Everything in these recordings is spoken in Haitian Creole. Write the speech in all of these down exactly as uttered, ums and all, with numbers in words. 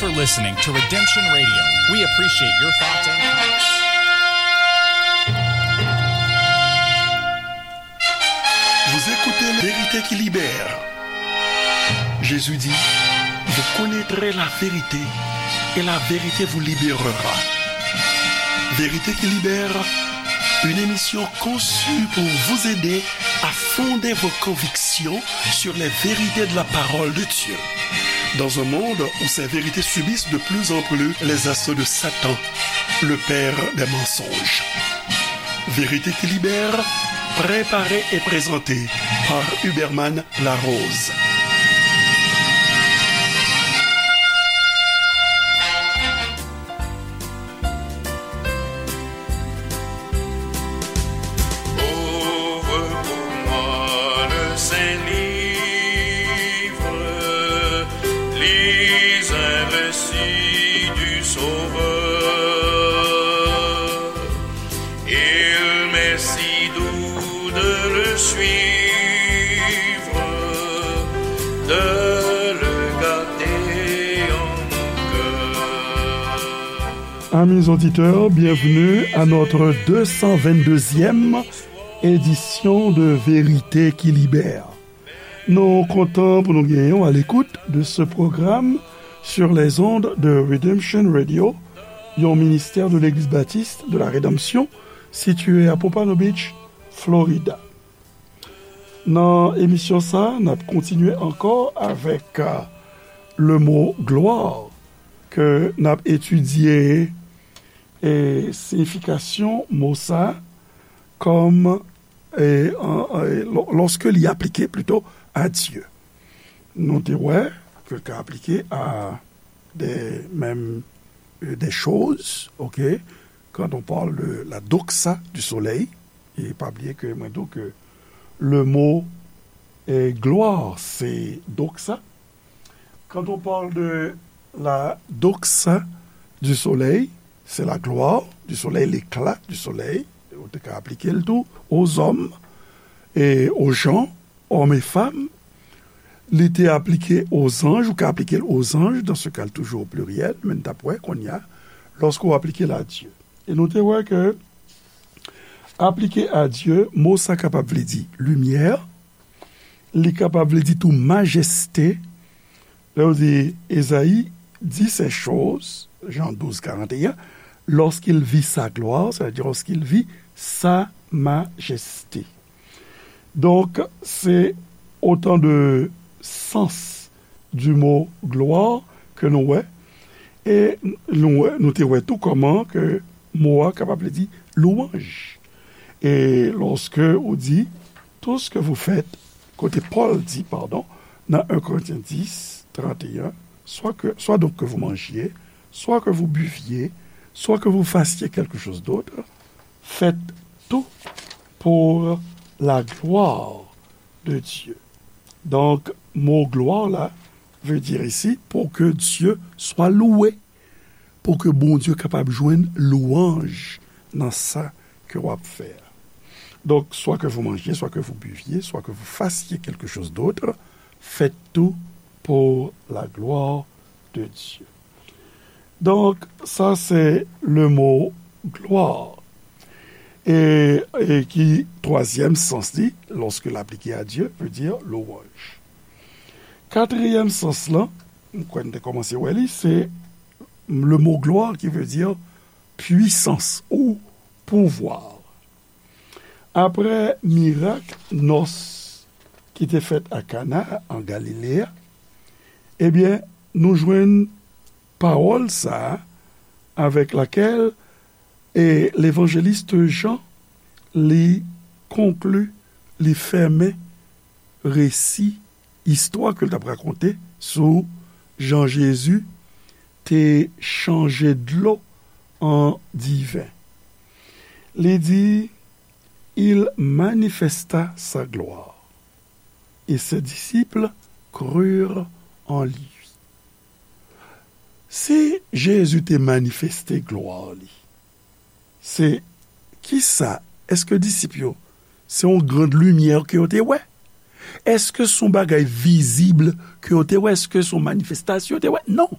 You're listening to Redemption Radio. We appreciate your thoughts and comments. Vous écoutez La Vérité qui libère. Jésus dit, vous connaîtrez la vérité et la vérité vous libérera. Vérité qui libère, une émission conçue pour vous aider à fonder vos convictions sur les vérités de la parole de Dieu. Dans un monde où ces vérités subissent de plus en plus les assauts de Satan, le père des mensonges. Vérité qui libère, préparée et présentée par Huberman Larose. Ouvre pour moi le Saint Livre, lis un récit du Sauveur. Il m'est si doux de le suivre, de le garder en mon cœur. Amis auditeurs, bienvenue à notre deux cent vingt-deuxième édition de Vérité qui Libère. Nou kontan pou nou genyen w à l'écoute de ce programme sur les ondes de Redemption Radio, yon ministè de Legliz Batis de la Redanmsyon, sitiye a Pompano Beach, Florida. Nan emisyon sa, n ap kontinye ankò avèk, euh, le mot gloire ke n ap etidye e siyifikasyon mo sa kòm, e, an, an, e, lò-, lòske li aplike plito a Dye. Nou te wè ke l ka aplike a de, menm, e, de choz, ok? Quand on parle de la doxa du soleil, e pa bliye ke mwen di w ke le mot, e, gloire, se doxa. Quand on parle de la doxa du soleil, c'est la gloire du soleil, l'éclat du soleil. Ou te ka aplike l tou aux hommes et aux gens, hommes et femmes. Li te aplike aux anges, ou ka aplike l aux anges, dans ce cas, toujours au pluriel, men n t ap wè kounye a, lòske w aplike l a Dye. E nou te wè ke aplike a Dye, mo sa kapab vle di limyè, li kapab vle di tou majeste. Lè yo di, Esaïe dit ces choses, Jean douze quarante et un, lorsqu'il vit sa gloire, c'est-à-dire lorsqu'il vit sa majesté. Donk, se otan de sans du mot gloire ke nou wè. E nou wè, nou te wè tou kòman ke mo a kapab vle di louanj. E lòske ou di, tout ce que vous faites, kote Pòl di, pardon, nan un Corinthiens dix, trente et un, soit que, soit donc que vous mangiez, soit que vous buviez, soit que vous fassiez quelque chose d'autre, faites tout pour la gloire de Dieu. Donk, mo glwa la veut dire ici pour que Dieu soit loué, pou ke Bondye kapab jwenn lwanj nan sa ke w ap fè a. Donc, soit que vous mangiez, soit que vous buviez, soit que vous fassiez quelque chose d'autre, faites tout pour la gloire de Dieu. Donc, ça, c'est le mot gloire. E, e ki twazyèm sans li, lorsque l aplike a Dye, veut dire louange. Katriyèm sans lan, m kwè n te kòmanse wè li, se le mot gloire qui veut dire puissance ou pouvoir. Apre mirak nòs ki te fèt a Kana, an Galile a, ebyen, nou jwenn pawòl sa a avec laquelle, e, levanjelis Jan, li konkli, li fèmen resi, istwa ke l t ap rakonte sou jan Jezi te chanje dlo an diven. Li di, il manifesta sa gloire, et ses disciples crurent en lui. Si Jezi te manifeste glwa li, se kisa? Èske disip yo, se yon grand limyè ke yo te wè? Èske se yon bagay vizib ke yo te wè? Èske se yon manifestasyon yo te wè? Non.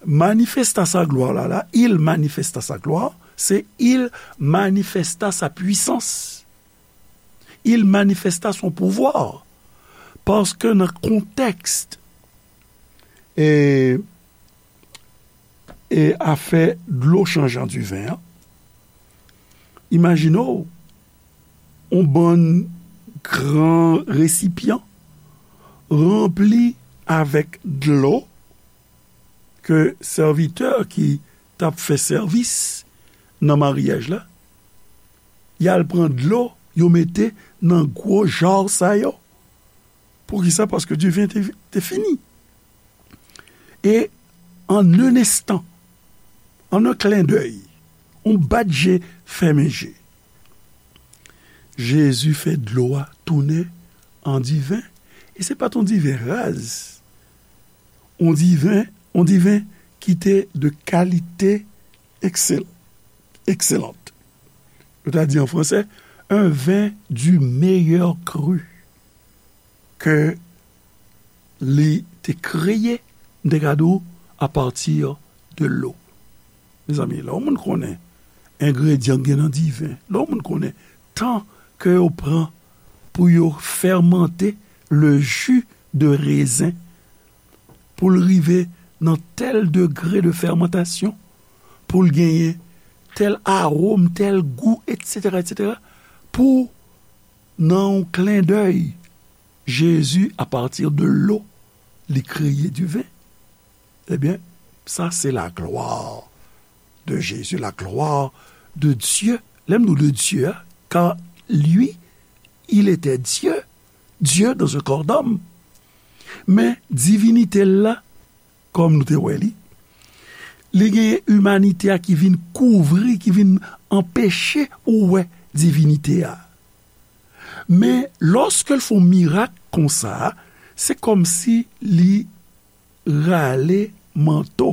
Manifesta sa glwa la, la, il manifesta sa glwa, se il manifesta sa puissance. Il manifesta son pouvoir. Paske nan kontèks e, e afè dlo chanje an diven an, imajine w yon bann gran resipyan ranpli avèk dlo ke sèvitè ki t ap fè sèvis nan maryaj la, y al pran dlo, yo mete nan gwo ja sa yo. Poukisa? Paske diven te, te fini. E an un instant, en un clin d'œil, yon bat je, fèmen je, Jezi fè dlo a tounen an diven. E se pa t yon diven raz. Yon diven, yon diven ki te de kalite eksel-, excellente. Yo ta di an fransè, un vin du meilleur cru ke li te kreye, m te ka di w, apati de lo. Mezanmi, lè yon moun konnen engredyan k gen nan diven, lè yon moun konnen tan ke yo pran pou yo fèmante le jus de raisin, pou l rive nan tèl degre de fèmantasyon, pou l genyen tèl awòm, tèl gou, etsetera, etsetera, pou, nan yon clin d'œil, Jezi, apati de lo, li kreye diven. Ebyen, sa se la gloire de Jésus, la gloire de Dieu. Lè m di w de Dieu, car lui, il était Dieu, Dieu dans un corps d'homme. Men divinite l la, kòm nou te wè li, li gen imanite a ki vin kouvri, ki vin anpeche ou wè divinite a. Men lòske l fè yon mirak konsa, se kòmsi li rale manto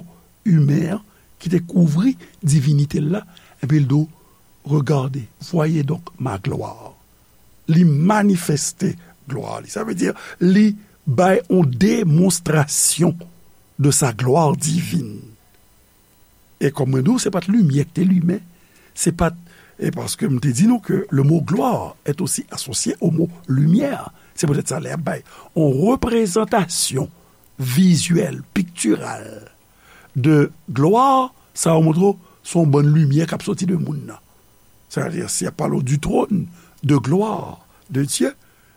imen an ki te kouvri divinite l la, epi l di w, regardez, voyez donc ma gloire. Li manifeste glwa li. Sa vle di, li bay yon demonstrasyon de sa gloire divine. E kòm mwen di w, se pa t limyè ki te limen. Se pa t, e paske m te di nou ke le mot gloire est aussi associé au mot lumière. Se poutèt sa, lè y ap bay yon reprezantasyon vizyèl, piktiral de glwa, sa yo montre w se yon bann limyè k ap soti de moun nan. Sa vle di, si y ap pale w du trône de gloire de Dieu,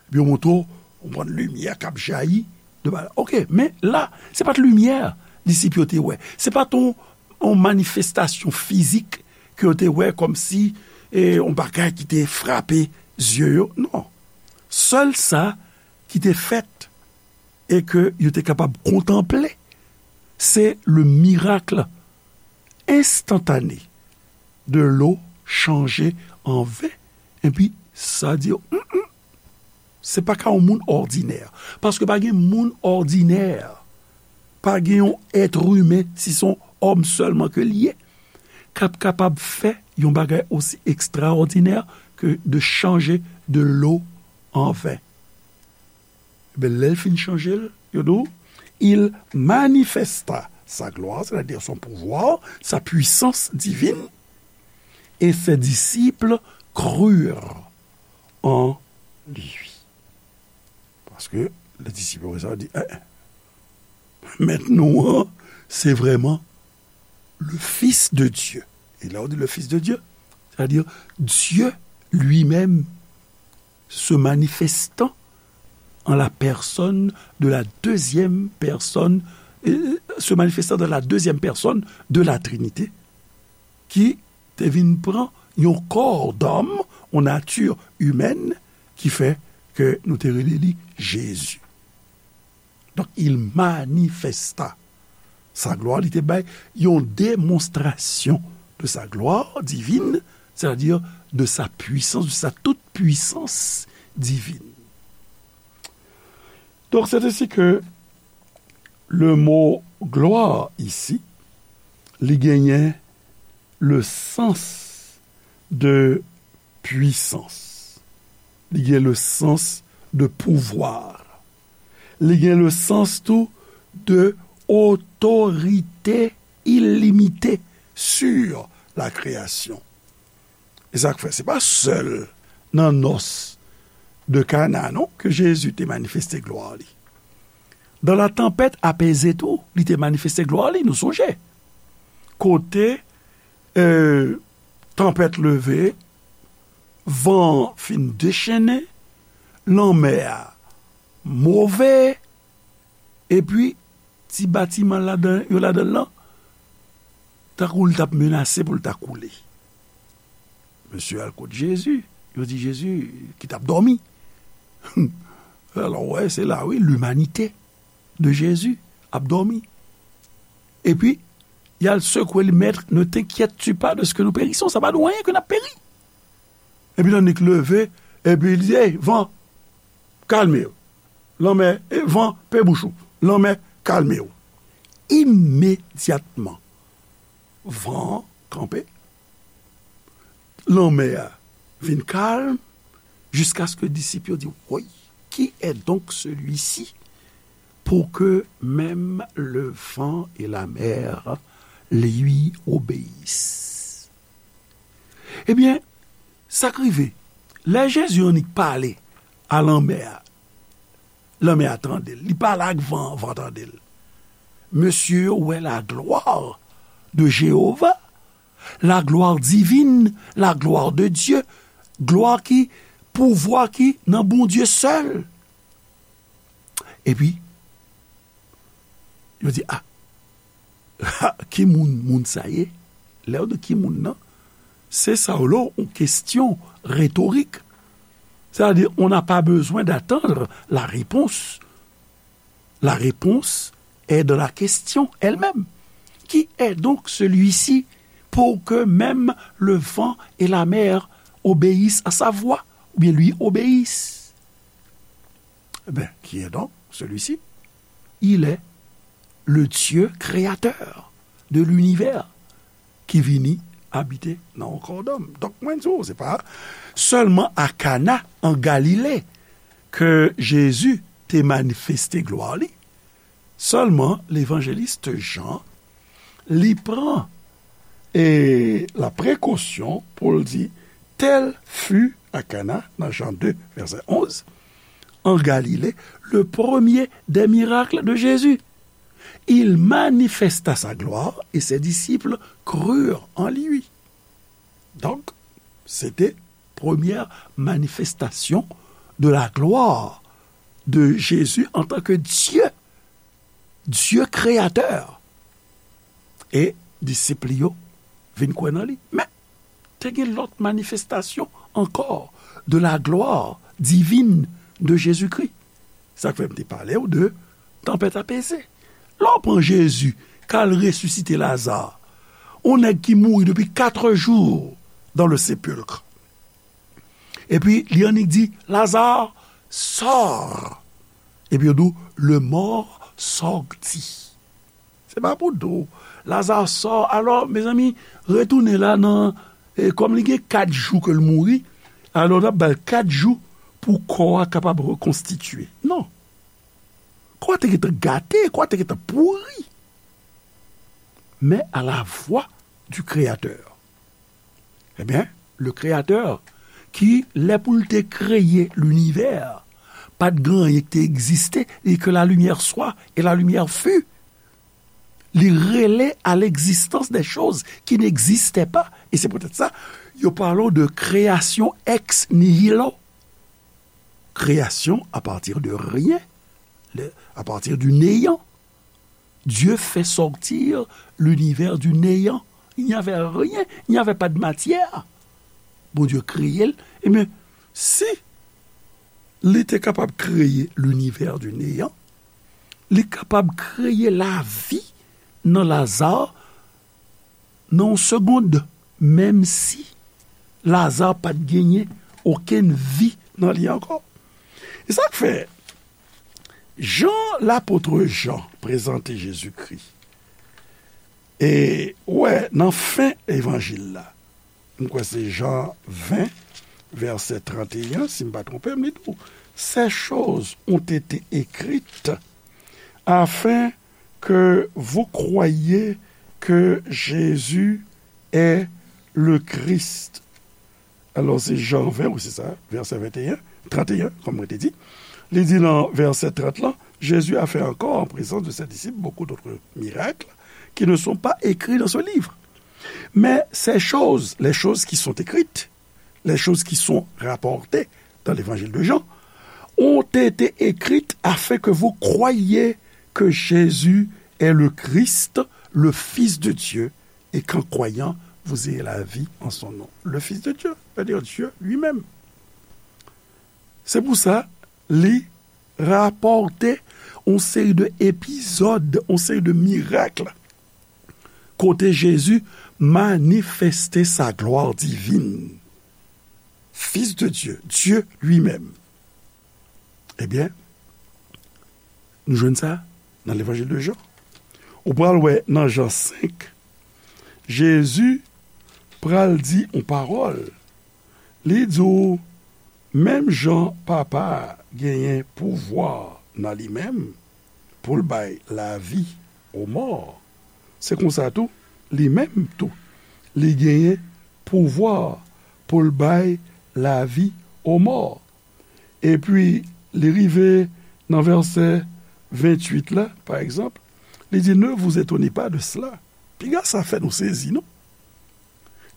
epi yo montre w yon bann limyè k ap jayi de ba-, oke, men la, se pa t limyè disip yo te wè. Se pa t yon, yon manifestasyon fizik ke yo te wè kòmsi, e, yon bagay ki te frape zye yo. Non. Sèl sa ki te fèt e ke yo te kapab kontanple, se le miracle instantané de l'eau changée en vin. Epi sa di yo, mm, mm, se pa ka yon moun òdinè. Paske pa gen moun òdinè, pa gen yon èt imen, si se yon òm sèlman ke l ye, k ap kapab fè yon bagay osi ekstraòdinè ke de chanje de lo an ven. Ebyen, lè l fin chanje l, yo di w, il manifesta sa gloire, c'est-à-dire son pouvoir, sa puissance divine, et ses disciples crurent en lui. Paske lè disip yo wè sa, yo di, eh, eh, mèt nou an, se vrèman le Fils de Dieu. Et là, on dit le Fils de Dieu, c'est-à-dire Dieu lui-même se manifestant en la personne de la deuxième personne, euh, se manifestant dans la deuxième personne de la Trinité, ki te vin pran yon kò dòm, yon nati imèn, ki fè ke nou te rele li Jezi. Donk, il manifesta sa gloire, li te bay yon demonstrasyon de sa gloire divine, c'est-à-dire de sa puissance, de sa toute puissance divine. Donk, c'est ainsi que le mot gloire ici, li genyen le sens de puissance. Li gen le sens de pouvoir. Li gen le sens tou de otorite illimité sur la création. E sa k fè, se pa sèl nan nòs de Kana, non, ke Jezi te manifeste glwa li. Dans la tempête apaisée tou, li te manifeste glwa li, nou sonje. Kote, euh, tanpèt leve, van an fin dechennen, lanmè a move, epi ti batiman ladan, yo ladan l lan, tankou l t ap menase pou l ta koule. Mesye al kot Jezi, yo di Jezi ki t ap dòmi. Alò, w wè, se la, wi, l'humanité de Jésus ap dòmi. Epi, y al sekwe li, Maître, ne t'inquiètes-tu pas de ce que nous périssons? Sa pa nou anyen ke n ap peri. Epi, tannik leve, epi li di, Ey, van, kalme w. Lanmè, e van, pe bouch ou. Lanmè, kalme w. Imedyatman, van an kanpe. Lanmè a vin kalm, jiskaske disip yo di, Woy, qui est donc celui-ci pour que même le vent et la mer lui obéissent? Ebyen, sa k rive, lè Jezi annik pale a lanmè a, lanmè a tande l. Li pale ak van an, van an tande l. Mesye yo wè la gloire de Jéhovah, la gloire divine, la gloire de Dieu, glwa ki, pouvwa ki nan Bondye sèl. Epi, yo di, A, ki moun moun sa ye? Lè yo di ki moun nan, se sa w lo, yon kesyon retorik. C'est-à-dire, on n'a pas besoin d'attendre la réponse. La réponse est dans la question elle-même. Qui est donc celui-ci pour que même le vent et la mer obéissent à sa voix, ou bien lui obéissent? Eh bien, qui est donc celui-ci? Il est le Dieu créateur de l'univers ki vini abite nan yon kò dòm. Donk, mwen di w, se pa sèlman a Kana, an Galile, ke Jezi te manifeste glwa li. Sèlman, levanjelis Jan, li pran, e, la précaution pou l di, Tel fut à Cana, nan Jean deux, verset onze, en Galilée, le premier des miracles de Jésus. Il manifesta sa gloire et ses disciples crurent en lui. Donc, c'était première manifestation de la gloire de Jésus en tant que Dieu, Dieu créateur. E disip li yo vin kwè nan li. Men, te gen lòt manifestasyon ankò de la gloire divine de Jésus-Christ. Sa k fè m te pale w de tanpèt apeze. Lè w pran Jezi k al resisite Laza, yon nèg ki mouri depi quatre jours dans le sépulcre. Epi li annik di, Lazare, sors. Epi yo di w, le mort sortit. Se pa pou di w, Lazare sò. Alò, mezanmi, retounen la nan, e, kòm li gen kat jou ke l mouri, alò n ap ba l kat jou pou kò a kapab rekonstitye. Non. Kò a te gentan gate, kò a te gentan pouri. Mais à la voix du Créateur. Ebyen, le Créateur, ki, lè pou l te kreye linivè, pa t gen anyen ki te egziste, li di que la lumière soit, et la lumière fut. Li rele à l'existence des choses qui n'existaient pas. E se poutèt sa, yo pale w de création ex nihilo. Création à partir de rien, le, à partir du néant. Dieu fait sortir l'univers du néant. Il n'y avait rien, il n'y avait pas de matière. Bondye kreye l. Ebyen, si li te kapab kreye linivè di neyan, li kapab kreye lavi nan Laza nan yon segond, menm si Laza pa t genyen okenn vi nan li ankò. E sa k fè, jan lapot Jan prezante Jezikri, e, ou wè, nan fen evanjil la, m kwè se Jan ven, vèsè trannteyen, si m pa twonpe m, li di w, Ces choses ont été écrites afin que vous croyiez que Jésus est le Christ. Alò, se Jan ven, wi, se sa, vèsè venteyen, tranteyen, kòm mwen te di. Li di nan vèsè trant lan, Jésus a fait encore en présence de ses disciples beaucoup d'autres miracles qui ne sont pas écrits dans ce livre. Mais ces choses, les choses qui sont écrites, les choses qui sont rapportées dans l'évangile de Jean, ont été écrites afin que vous croyiez que Jésus est le Christ, le Fils de Dieu, et qu'en croyant, vous ayez la vie en son nom. Le Fils de Dieu, c'est-à-dire Dieu lui-même. Se pou sa, li rapòte yon seri de epizòd, yon seri de mirak kote Jezi manifeste sa glwa divin. Fils de Dieu, Dieu lui-même. Ebyen, nou jwenn sa nan Levanjil de Jan. Ou pral wè nan Jan senk, Jezi pral di yon pawòl. Li di w, menm jan Papa a genyen pouvwa nan li menm pou l bay lavi o mò, se konsa tou, li menm tou, li genyen pouvwa pou l bay lavi o mò. Epi, li rive nan vèsè venntuit la, pa egzanp, li di, Ne vous étonnez pas de cela. Piga sa fè nou sezi, non?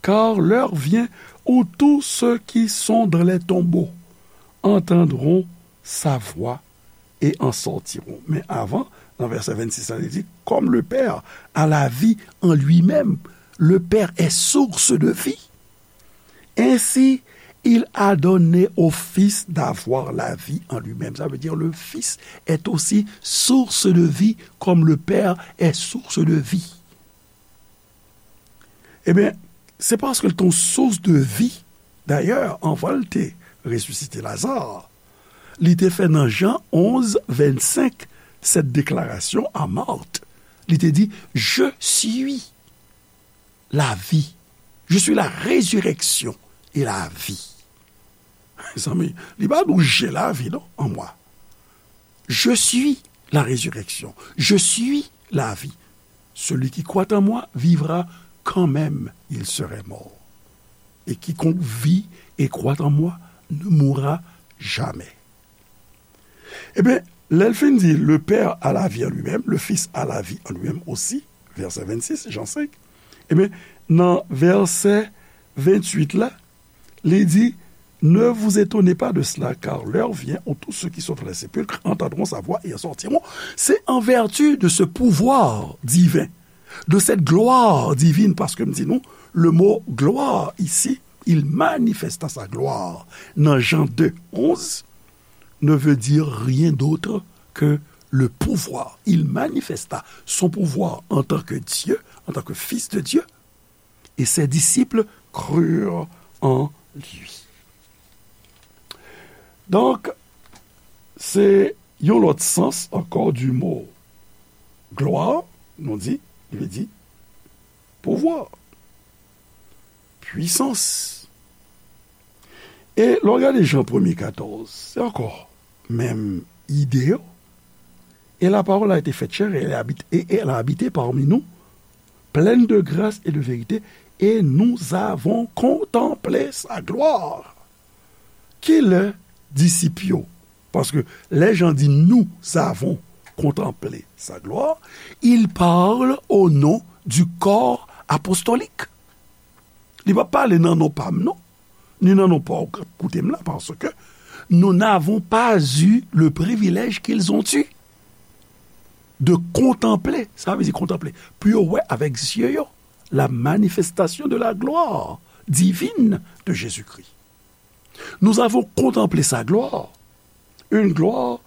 Car l'heure vient où tous ceux qui sont dans les tombeaux entendront sa voix et en sortiront. Men avan, nan vèsè vennsis la, li di, Comme le Père a la vie en lui-même, le Père est source de vie. Ainsi, il a donné au Fils d'avoir la vie en lui-même. Ça veut dire le Fils est aussi source de vie, comme le Père est source de vie. Ebyen, se paske l te yon sous de vi. Dayè, anvan l te resisite Laza, li te fè nan Jan onz vennsenk sèt deklarasyon a Mat. Li te di, Je suis la vie. Je suis la résurrection et la vie. Mezanmi, li pa di w j'ai la vie, non, en moi. Je suis la résurrection. Je suis la vie. Celui qui croit en moi vivra quand même il serait mort. Et quiconque vit et croit en moi ne mourra jamais. Ebyen, lè l fin di, Le Père a la vie en lui-même, le Fils a la vie en lui-même aussi, vèsè vennsis, Jan senk, ebyen, nan vèsè venntuit la, li di, Ne vous étonnez pas de cela, car l'heure vient où tous ceux qui sont dans les sépulcres entendront sa voix et en sortiront. C'est en vertu de ce pouvoir divin, de cette gloire divine, paske m di nou, le mot gloire ici, il manifesta sa gloire. Nan Jan de onz, ne veut dire rien d'autre que le pouvoir. Il manifesta son pouvoir en tant que Dieu, en tant que Fils de Dieu, et ses disciples crurent en lui. Donk, se yon lòt sans ankò du mot gloire, nou di, li vle di pouvwa, pwisans. E lè w gade Jan premye katòz, se ankò menm ide yo. Et la parole a été faite chair et elle a habité, et elle a habité parmi nous, pleine de grâce et de vérité, et nous avons contemplé sa gloire. Kilè disip yo? Paske lè Jan di nous avons contemplé sa gloire, il parle au nom du corps apostolique. Li pa pale nan non pa m, non, ni nan non pa w k ap koute m la, paske nous n'avons pas eu le privilège qu'ils ont eu de contempler, sa vle di kontanple, pou yo wè avèk zye yo, la manifestation de la gloire divine de Jésus-Christ. Nous avons contemplé sa gloire, une gloire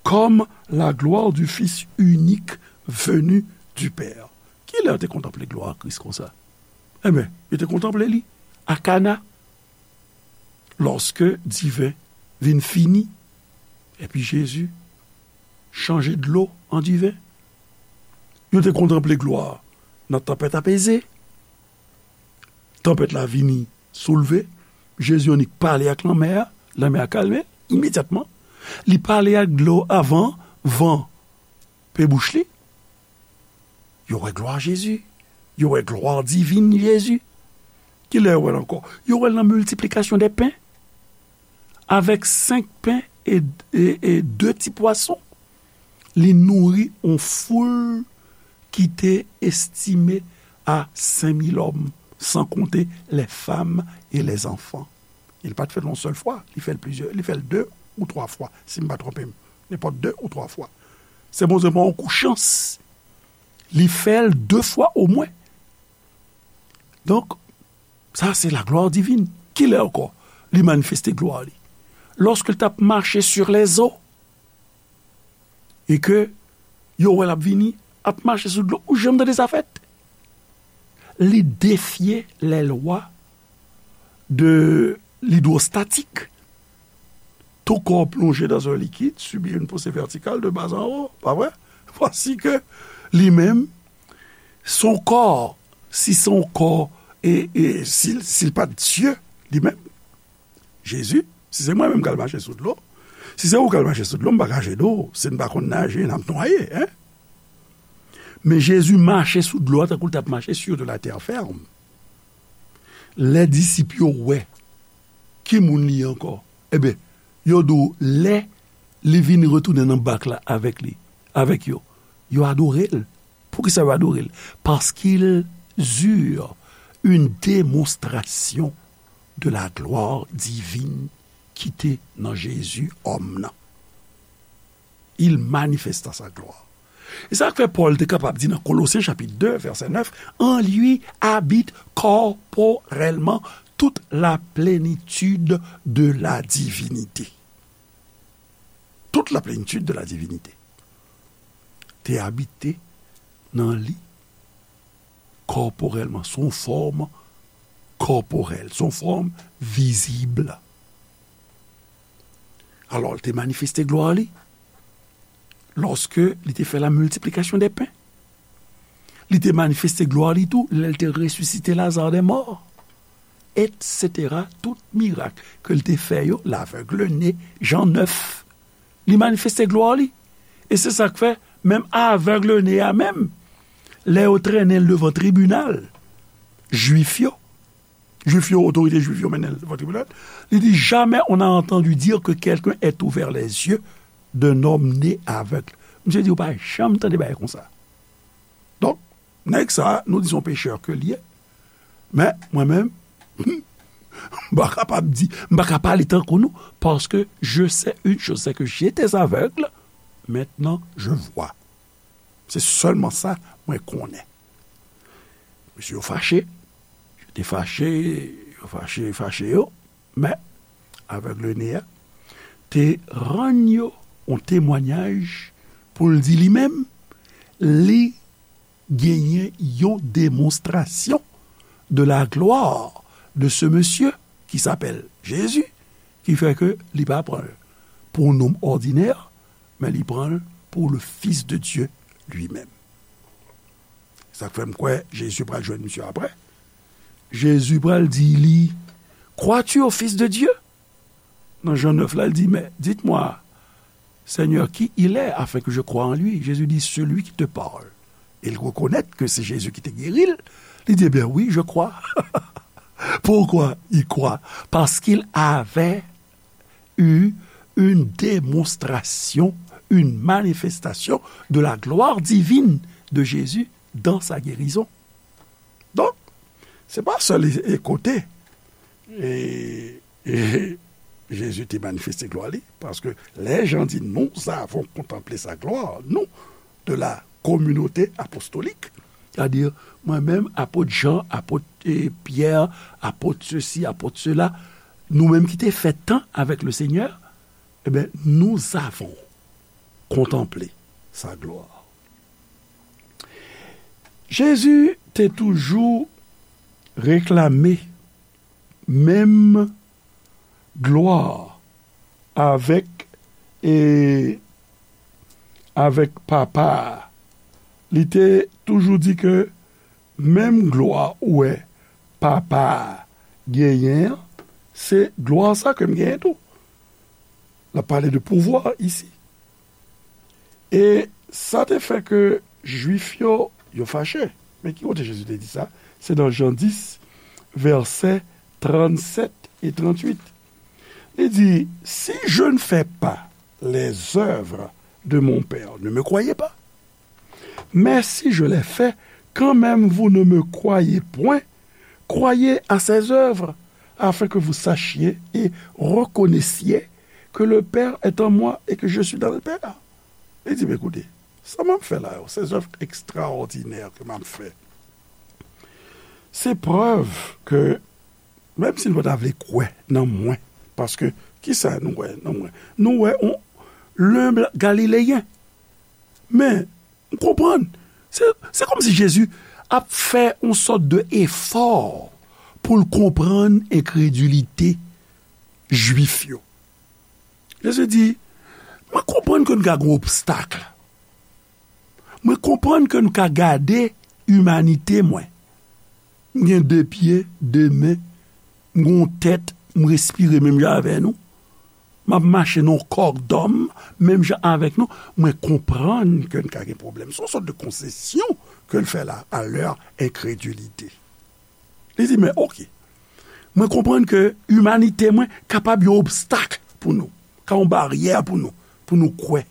comme la gloire du Fils unique venu du Père. Kilè yo te kontanple glwa Kris konsa? Ebyen, yo te kontanple li a Kana, lòske diven vin fini, epi Jezi chanje dlo an diven. Yo te kontanple glwa nan tanpèt apeze. Tanpèt la vini soulve. Jezi annik pale ak lanmè a, lanmè a kalme imedyatman. Li pale ak dlo avan van pe bouch li. Yo wè glwa Jezi. Yo wè glwa divin Jezi. Kilè yo wè l ankò? Yo wè l nan miltiplikasyon dè pen. Avèk senk pen e, e, e de ti pwason, li nouri yon foul ki te estime a senk mil òm, san konte lè fanm e lè zanfan. Li pa t fè l yon sèl fwa, li fè l plizyè, li fè l de ou twa fwa, si m pa twonpe m. Nenpòt de ou twa fwa. Se Bondye ban yon kou chans. Li fè l de fwa omwen. Donk, sa se laglwa divin. Kilè ankò li manifeste glwa li? Lòske l t ap mache sur les eaux. E ke yo wè l ap vini, ap mache sou dlo. Ou janm tande sa fèt? Li defye les lois de l'hydrostatique. Tout corps plongé dans un liquide subit une poussée verticale de bas en haut, pa vre? Voici que li menm, son kò, si se yon kò, e, e si, si l pa t Dye, li menm, Jezi, si se mwen menm k al mache sou dlo, si se ou k al mache sou dlo, m pa ka jede w, si n pa konn naje, n ap nwaye, en? Men Jezi mache sou dlo a tankou l t ap mache sur de la terre ferme. Lè disip yo wè ki moun li ye ankò, ebyen, yo di w lè li vin retounen nan bak la avèk li, avèk yo, yo adore l. Poukisa yo adore l? Parce qu'ils eurent une démonstration de la gloire divine ki te nan Jezi, òm nan. Il manifesta sa gloire. E sa k fè Pòl te kapab di nan Kolosyen chapit de, vèsè nèf, en lui habite corporellement toute la plénitude de la divinité. Toute la plénitude de la divinité te abite nan li kòporèlman, sou yon fòm kòporèl, sou yon fòm vizib. Alò, li te manifeste glwa li lòske li te fè la miltiplikasyon dè pen. Li te manifeste glwa li tou lè l te resisite Lazare dè mò, etsetera. Tout mirak ke l te fè yo, lavèg ne, Jan nèf, li manifeste glwa li. E se sa k fè, menm avèg ne a menm, lè yo trennen l devan tribinal Jwif yo, Jwif yo, otorite Jwif yo mennen l devan tribinal, li di, jamais on a entendu dire que quelqu'un ait ouvert les yeux d'un homme né aveugle. Misye di, ou pa janm tande bagay konsa. Donk, nèg sa, nou di se yon pechè ke l ye. Men, mwen menm, m pa kapab di, m pa ka pale tankou nou, paske je sais une chose, c'est que j'étais aveugle, maintenant je vois. Se sèlman sa mwen konnen. Mesye yo fache, yo te fache, yo fache, fache yo, men avèg ne a te rann yo yon temwanyaj pou l di li menm, li genyen yon demonstrasyon de la gloire de ce monsieur qui s'appelle Jésus, ki fè ke li pa pran l pou yon nonm òdinè, men li pran l pou le Fils de Dieu lui-même. Sa k fè m kwè Jezi pral jwenn misye apre. Jezi pral di li, crois-tu au Fils de Dieu? Nan Jan nèf la, l di, mais dites-moi, Seigneur, qui il est, afin que je croie en lui? Jésus dit, celui qui te parle. E l rekonèt ke se Jezi ki te geri l. Li di, ben oui, je crois. Pourquoi il croit? Parce qu'il avait eu une démonstration, une manifestation de la gloire divine de Jésus dans sa guérison. Donk, se pa sèl e, e kote e, e Jezi te manifeste glwa li, paske lè Jan di, nous avons contemplé sa gloire, nous, de la communauté apostolique, c'est-à-dire, mwen menm, apot Jan, apot, e, Pyè, apot sesi, apot sela, nou menm ki te fè tan avèk le Senyè, e ben, nous avons contemplé sa gloire. Jezi te toujou reklame menm glwa avèk, e, avèk Papa a. Li te toujou di ke menm glwa ou wè Papa a genyen an, se glwa sa ke m genyen tou. L ap pale de pouvwa isi. E sa te fè ke Jwif yo, yo fache. Men ki kote Jezi te di sa? Se nan Jan dis, vèsè trannsèt e tranntuit. Li di, si je ne fais pas les œuvres de mon Père, ne me croyez pas. Mais si je les fais, quand même vous ne me croyez point. Croyez à ses œuvres, afin que vous sachiez et reconnaissiez que le Père est en moi et que je suis dans le Père. Li di, men koute, sa m ap fè la yo, se zèv ekstraòdinè ke m ap fè. Se prèv ke, menm si nou pa ta vle kwè nan mwen, paske, kisa nou wè nan mwen? Nou wè yon lenb galileyen. Men, m konprann. Se, se kòmsi Jezi ap fè yon sòt de efò pou l konprann enkredilite Jwif yo. Jezi di, mwen konprann ke nou ka gen obstak. Mwen konprann ke nou ka gade imanite mwen. M gen de pye, de men, m gen yon tèt, m respire menm jan avè nou. M ap mache nan yon kò dòm, menm jan avèk nou. Mwen konprann ke n ka gen pwoblèm. Se yon sòt de konsesyon ke l fè la, à leur incrédulité. Li di, men oke, mwen konprann ke imanite mwen kapab yon obstak pou nou, ka yon baryè pou nou, pou nou kwè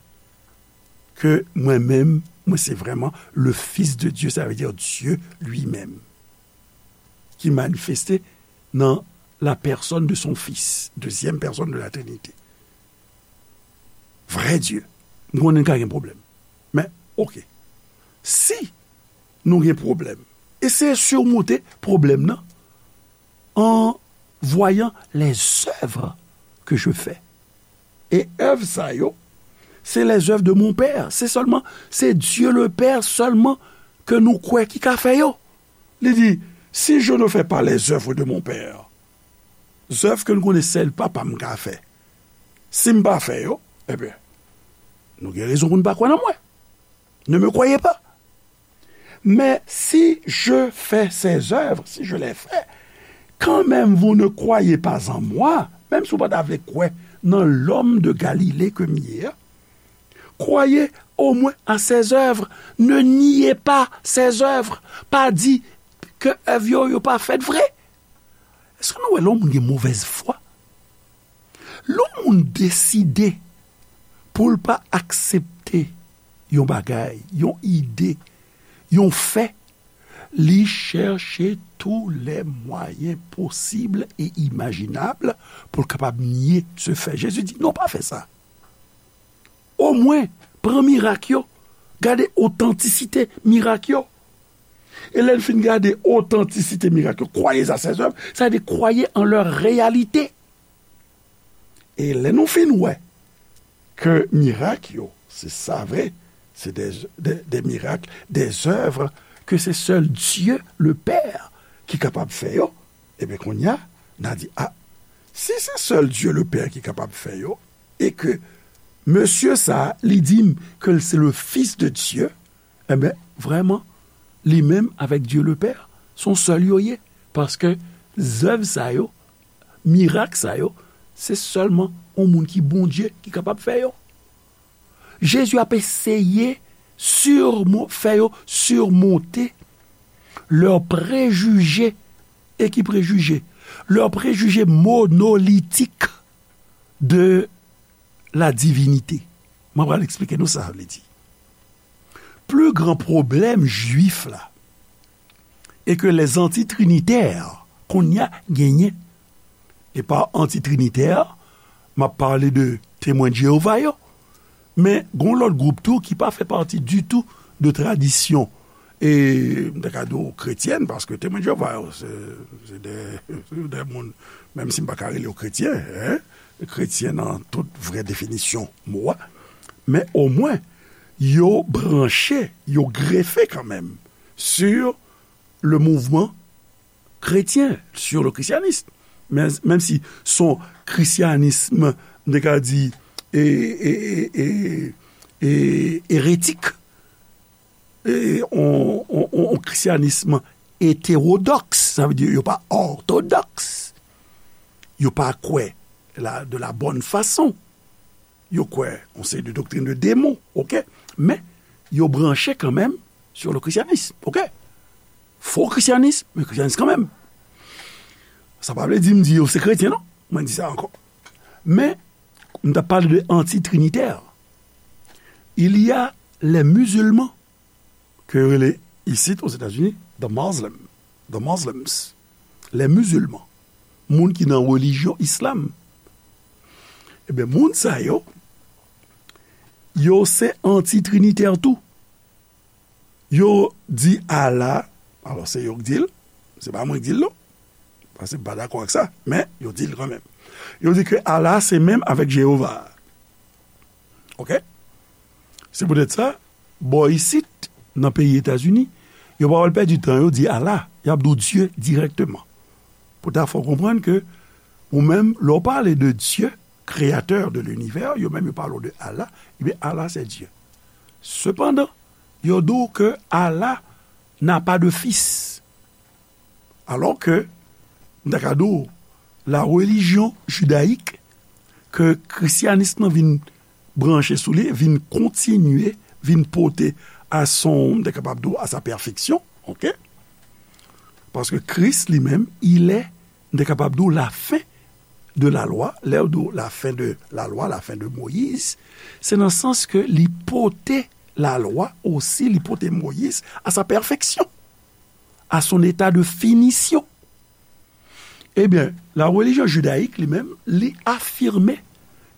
ke mwen menm, mwen se vrèman le Fils de Dieu, sa vle di Dye li menm, ki manifeste nan la personne de son Fils, deuxième personne de la Trinité. Vrè Dye. M konnen n ka gen pwoblèm. Men, oke. Si nou gen pwoblèm, eseye sirmonte pwoblèm nan en voyant les œuvres que je fais. E èv sa yo, se les œuvres de mon Père. Se sèlman, se Dieu le Père sèlman ke nou kwè ki ka fè yo. Li di, si je ne fais pas les œuvres de mon Père, zèv ke nou konnen sèl Papa m ka fè, si m pa fè yo, ebyen, nou gen rezon pou n pa kwè nan mwen. Ne me croyez pas. Mais si je fais ces œuvres, si je les fais, quand même vous ne croyez pas en moi, menm si w pa ta vle kwè nan l'homme de Galilée ke m ye a, croyez au moins à ses œuvres. Ne niez pas ses œuvres. Pa di ke èv yo, yo pa fèt vre. Èske nou wè lè yon moun gen movèz fwa? Lè yon moun deside pou l pa aksepte yon bagay, yon ide, yon fè, li chèche tous les moyens possibles et imaginables pou l kapab nye se fè. Jezi di, non, pa fè sa. Omwen, pran mirak yo, gade otantisite mirak yo. E lè n fin gade otantisite mirak yo, croyez à ses œuvres, sa vle di croyez en leur réalité. E lè nou fin wè ke mirak yo, se sa vre, se des, des, des miracles, des œuvres que c'est seul Dieu le Père ki kapab fè yo, ebyen kounye a, n a di, a, si se sèl Dye le Pè ki kapab fè yo, e ke mesye sa a, li di m ke l se le Fis de Dye, enben, vrèman, li menm avèk Dye le Pè, se yon sèl yo ye. Paske zèv sa yo, mirak sa yo, se sèlman yon moun ki Bondye ki kapab fè yo. Jezi ap eseye sirmo-, fè yo sirmonte lè prejije, e ki prejije? Lè prejije monolitik de la divinite. Mwen pral eksplike nou sa sa vle di. Pli gran pwoblèm jwif la, e ke lèzantitrinitè kounye a genyen. E pa antitrinitè, m ap pale de Temwen de Jewova yo. Men, gen yon lòt gwoup tou ki pa fè pati ditou de tradisyon, e m ta ka di w kretyèn, paske Temwen de Jewova yo, se, se de, se de moun, menm si m pa ka rele yo kretyen, en, kretyen nan tout vrè definisyon mo a, men omwen, yo branche, yo grefe kanmenm sur le mouvement chrétien, sur le christianisme. Men, menm si se yon krisyanis, m te ka di, e, e, e, e, e, eretik, e, on, on, on, on krisyanis etewodòks, sa vle di yo pa òtodòks, yo pa kwè la, de la bonne façon. Yo kwè yon seri de doktrin de demon, oke? Men, yo branche kanmenm sur le christianisme, oke? kristyanis, men kristyanis kanmenm. Sa pa vle di m di yo se kretyen, non. Mwen di sa ankò. Men, m t ap pale de anti-trinitè. Il y a les musulmans, ke yo rele isit, Ozetazini, the Muslim, the Muslims, les musulmans, moun ki nan relijyon islam. Ebyen, moun sa yo, yo se anti-trinitè tou. Yo di Allah, alò se yo k di l, se pa mwen k di l non, paske m pa dakò ak sa, men yo di l kanmenm. Yo di ke Allah se menm avèk Jewova. Oke? Se poutèt sa, bò isit, nan peyi Etazini, yo pa pral pèdi tan yo di Allah, y ap di w Dye dirèkteman. Pou ta fè w konprann ke ou menm, lè w pale de Dye, créateur de l'univers, yo menm yo pale w de Allah, ebyen Allah se Dye. Sepandan, yo di w ke Allah n'a pas de fils. Alò ke, m ta ka di w, la religion judaïque ke kristyanis lan vin branche sou li, vin kontinye, vin pote à son, m ta kapab di w, à sa perfection, oke? Paske Kris li menm, il est, m ta kapab di w, la fin de la loi, lè yo di w la fin de la loi, la fin de Moïse, se nan sans ke li pote la loi osi, li pote Moïse à sa perfection, à son état de finition. Ebyen, la religion judaïque li menm, li afime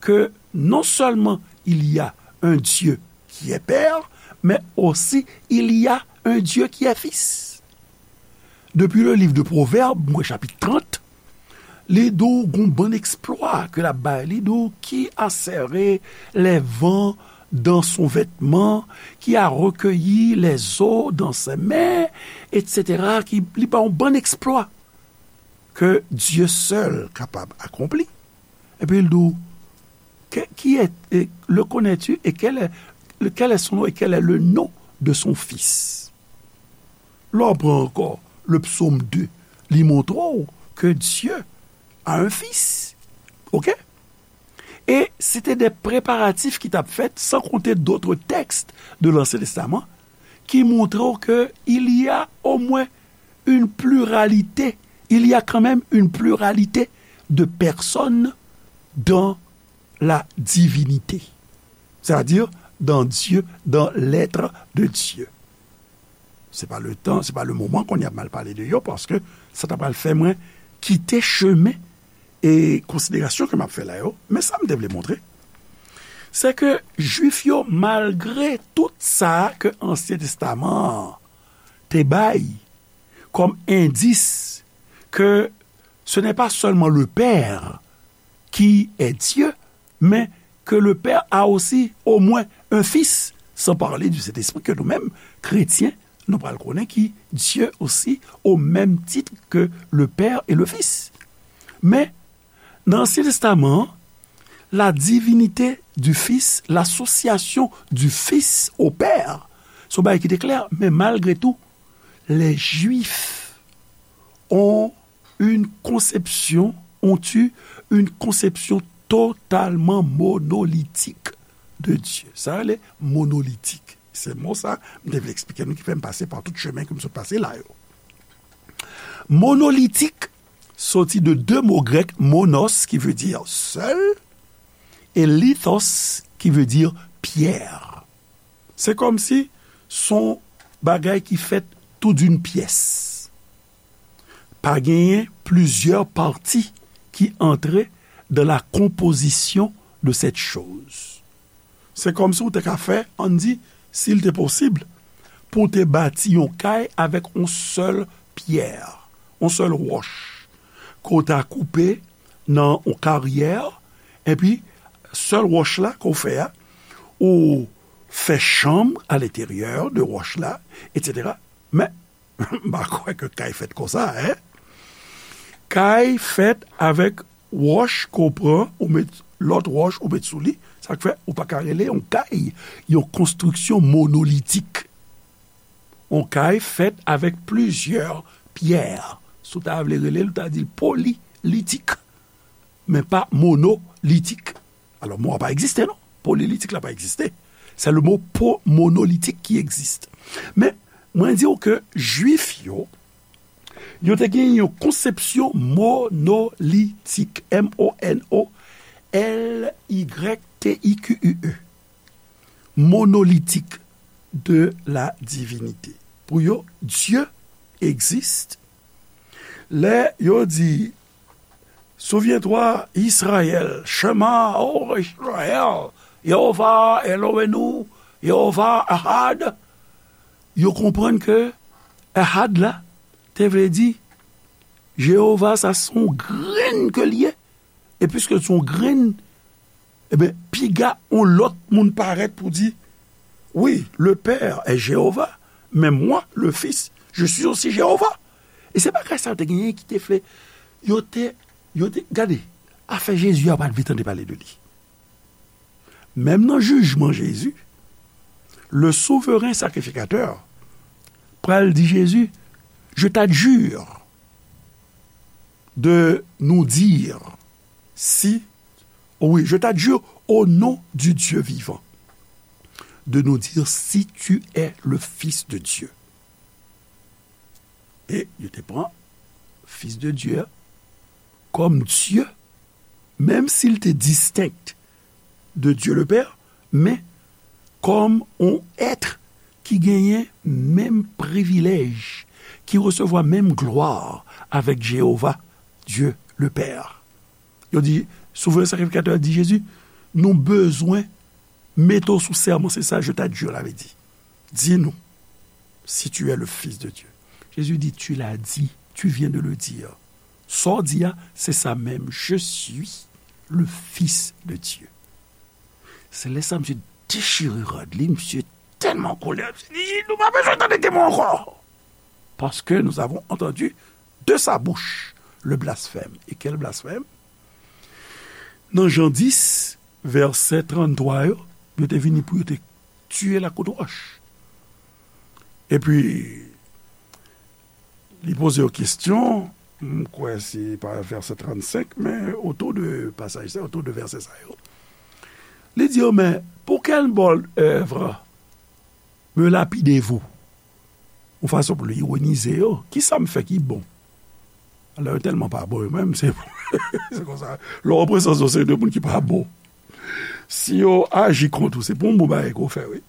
ke non seulement il y a un Dieu qui est père, mais aussi il y a un Dieu qui est fils. Depi le livre de Proverbes, mwen chapit trant, li di w gon bann eksplwa ke l ap bay. Li di w qui a serré les vents dans son vêtement, qui a recueilli les eaux dans ses mains, et cetera. Ki, li ba yon bann eksplwa ke Dye sèl kapab akonpli. Epi l di w, que, qui est, et le connais-tu, et quel est, le, quel est son nom, et quel est le nom de son fils? Lè w pran ankò le psaume deux, li montre w ke Dye a un fils. Oke? E se te de preparatif ki t ap fèt, sans compter d'autres textes de l'Ancien Testament, ki montre w ke il y a au moins une pluralité, il y a quand même une pluralité de personnes dans la divinité. C'est-à-dire dans Dieu, dans l'être de Dieu. Se pa le tan, se pa le moman kounye a pou m al pale de yo, paske sa ta pral fè mwen kite chemen e konsiderasyon ke m ap fè la yo. Men sa m te vle montre, se ke Jwif yo, malgre tout sa ke Ansyen Testaman an te bay kòm endis ke ce n'est pas seulement le Père qui est Dieu, mais que le Père a aussi au moins un Fils, sans parler du Saint-Esprit que nous-mêmes, chrétiens, nou pral konnen ki Dieu aussi au même titre que le Père et le Fils. Men, nan Ansyen Testaman an, la divinité du Fils, l'association du Fils au Père, se yon bagay ki te klè, men malgre tou, les Juifs ont une conception, ont eu une conception totalement monolithique de Dieu. Sa rele monolitik. Se mo sa, m te vle eksplike nou ki fè m pase pa tout chemen ke m sot pase la yo. Monolitik soti de de mo grèk, monos, ki vle di sèl, e lithos, ki vle di pyè. Se kòmsi se yon bagay ki fèt tou d'une pièce. Pa genyen plizyè pati ki antre dans la composition de cette chose. Se kòmsi w te ka fè, ann di, si l te posib, pou w te bati yon kay avèk yon sèl pyè, yon sèl wòch, ke w ta koupe nan yon karyè, epi sèl wòch la ke w fè a, ou fè chanm à l'intérieur de wòch la, et cetera. Men, m pa kwè ke kay fèt konsa, en. Kay fèt avèk wòch ke w pran, ou met lòt wòch, ou met sou li. Sa k fè, ou pa ka rele yon kay yon konstriksyon monolitik. Yon kay fèt avèk plizyè pyè. Si w ta vle rele l, ou ta di l polilitik, men pa monolitik. Alò, mo a pa egziste, non. Polilitik la pa egziste. Se le mo po-, monolitik ki egziste. Men, mwen di w ke Jwif yo, Yo te gen yon konsepsyon monolitik, M O N O L Y T I Q U E, monolitik de la divinite. Pou yo, Dye egziste. Lè yo di, Souviens-toi, Israël, Shema, oh Israël, Yehova Eloheinu, Yehova Ahad. Yo konprann ke Ahad la te vle di Jewova, sa se yon grenn ke l ye. E piske se yon grenn, ebyen, piga yon lòt moun parèt pou di, oui, le Père est Jéhovah, mais moi, le Fils, je suis aussi Jéhovah. E se bagay sa yo te genyen ki te fè, yo te, yo te, gade, afè Jezi a, yo pa t vle tande pale de li. Menm nan jijman Jezi, le souveren sakrifikatè pral di Jezi, je t'adjure de nous dire si, oui, je t'adjure au nom du Dieu vivant, de nous dire si tu es le Fils de Dieu. E yo te pran Fils de Dieu a kòm Dye, menm si l te distenk de Dieu le Père, men kòm yon èt ki genyen menm privilèj, ki resevwa menm glwa avèk Jewova, Dye le Pè. Yo di, souvren sakrifikatè a di Jezi, nou bezwen mete w sou sèman, se sa je t'adjure la vle di. Di nou si tu es le Fils de Dieu. Jezi di, tu l'as dit, tu viens de le dire. Sa w di a, se sa menm, je suis le Fils de Dieu. Se lè sa misye dechire rad li, misye tèlman kolè, misye di, nou pa bezwen tande temwen ankò. Parce que nous avons entendu de sa bouche le blasphème. E kèl blasfèm? Nan Jan dis, vèsè tranntwa yo, yo te vini pou yo te tiye l ak kout wòch. Epi, li poze yo kesyon, m kwè se pa vèsè trannsenk, men otou de pasaj sa, otou de vèsè sa yo. Li di yo, mais pour quelle bonne œuvre me lapidez-vous? Yon fason pou l ironize yo, kisa m fè ki bon? Alò, yo tèlman pa bon, yo menm, se, se konsa. Lè w an prezans yon seri de moun ki pa bon, si yo aji kont ou, se pou yon bon bagay ke w fè, wi.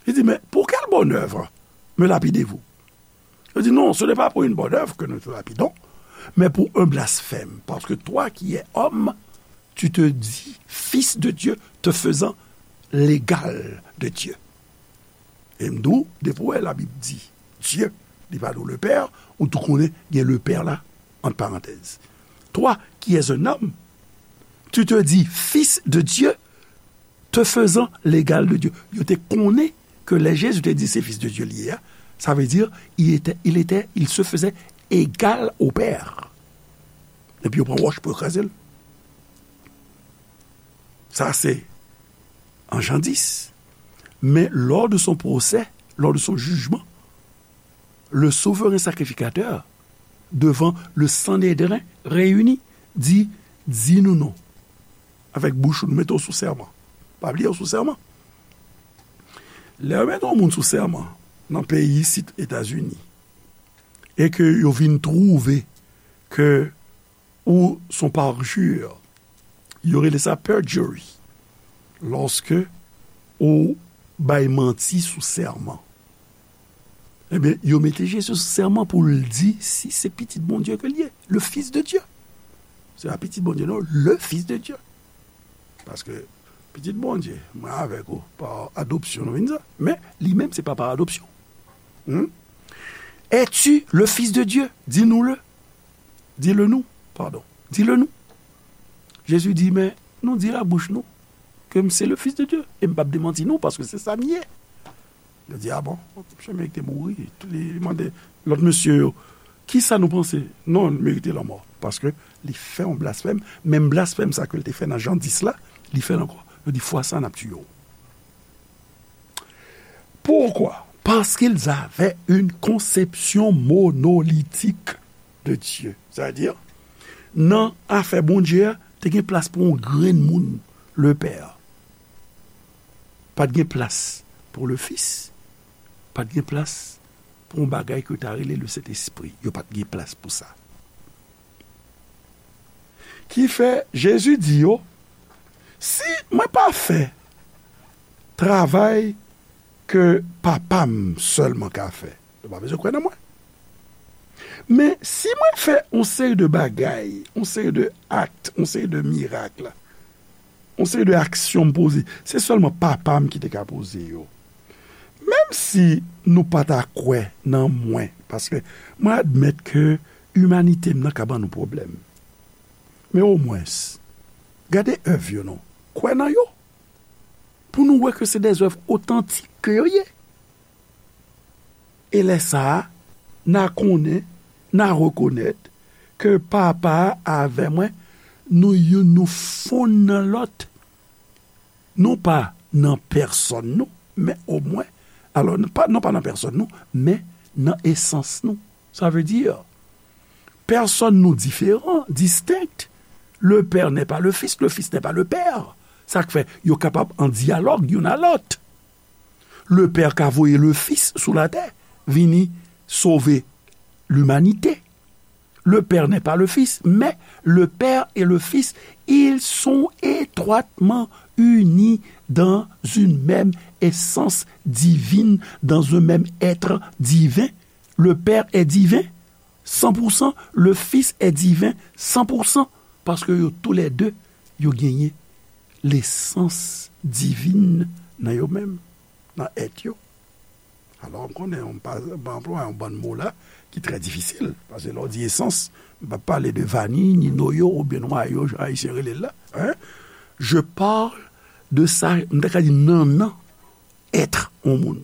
Li di, mais pour quelle bonne œuvre me lapidez-vous? Yo di, non, ce n'est pas pour une bonne œuvre que nous te lapidons, mais pour un blasphème, parce que toi qui es homme, tu te dis fils de Dieu, te faisant l'égal de Dieu. E m di w, depi w wè Labib di Dye, li pa di w le Père, ou tou konnen gen le Père la, ant parantèz. Toi qui es un homme, tu te dis fils de Dieu, te faisant l'égal de Dieu. Yo te konnen ke lè Jezi te di se Fils de Dieu li ye a, sa vle di, il était, il était, il se faisait égal au Père. Epi yo pran wòch pou yo kraze l. Sa se an Jan dis. Mais lors de son procès, lors de son jugement, le souverain sacrificateur, devant le Sanhédrin réuni, di, di nou non. Avèk bouch ou, nou mete w sou sèman. Pa bliye w sou sèman. Lè yo mete yon moun sou sèman nan peyi isit Etazini, e ke yo vin twouve ke ou son parjure, yo rele sa perjury, lòske ou bay manti sou sèman. Ebyen, yo mete Jezi sou sèman pou l di si se pitit Bondye ke l ye, le Fils de Dieu. Se pa pitit Bondye, non, le Fils de Dieu. Paske pitit Bondye, mwen avèk ou, pa adopsyon nou vin sa, men li menm se pa pa adopsyon. Hmm? Es-tu le Fils de Dieu? Dis-nous-le. Dis-le nous, pardon. Dis-le nous. Jezi di, men nou di l a bouch nou ke m se le Fils de Dieu. E m p ap demanti nou, paske se sa m ye. Yo di, a bon, misye merite mouri. Li, li mande lòt mesye yo, kisa nou panse? Non, li merite lanmò. Paske li fè yon blasfèm. Menm blasfèm sa ke l te fè nan Jan dis la, li fè l ankò. Yo di, fwa sa, n ap tiye w. Pourquoi? Parce qu'ils avaient une conception monolithique de Dieu. Sa vle di, nan afè Bondye a, te gen plas pou yon grenn moun, le Père. Pa t gen plas pou le Fils, pa t gen plas pou yon bagay ke yo ta rele le Sentespri. Yo pa t gen plas pou sa. Ki fè, Jezi di yo, si mwen pa fè travay ke Papa m sèlman ka fè, yo pa bezwen kwè nan mwen. Men si mwen fè yon seri de bagay, yon seri de akt, yon seri de mirak, yon seri de aksyon m poze, se sèlman Papa m ki te ka poze yo. Menm si nou pa ta kwè nan mwen, paske mwen admèt ke imanite m nan ka ban nou pwoblèm. Men omwens, gade èv yo non. Kwè nan yo. Pou nou wè ke se dèzèv otantik ke yo ye. E lè sa a, n a konnen, n a rekonèt ke Papa a avè mwen, nou youn nou fonn nan lòt. Non pa nan pèsòn nou, men omwen, alò, non pa, non pa nan pèsòn nou, men nan esans nou. Sa vle di, pèsòn nou diferan, distenk. Le Père n'est pas le Fils, le Fils n'est pas le Père. Sa k fè yo kapab an dyalòg youn a lòt. Le Père ka voye le Fils sou latè, vini sove limanite. Le Père n'est pas le Fils, mais le Père et le Fils, ils sont étroitement unis dans une même essence divine, dans un même être divin. Le Père est divin, san pou san, le Fils est divin, san pou san, paske yo toulède, yo genyen lesans divin nan yo menm, nan èt yo. Alò, m konnen, m pa, m pa anplwaye yon bann mo la ki trè difisil, paske lè w di esans, m pa pale de vani, ni noyo, oubyen nwayo, jan Ayisyen rele l la, hein? Je parle de sa, m ta ka di nannan èt yon moun.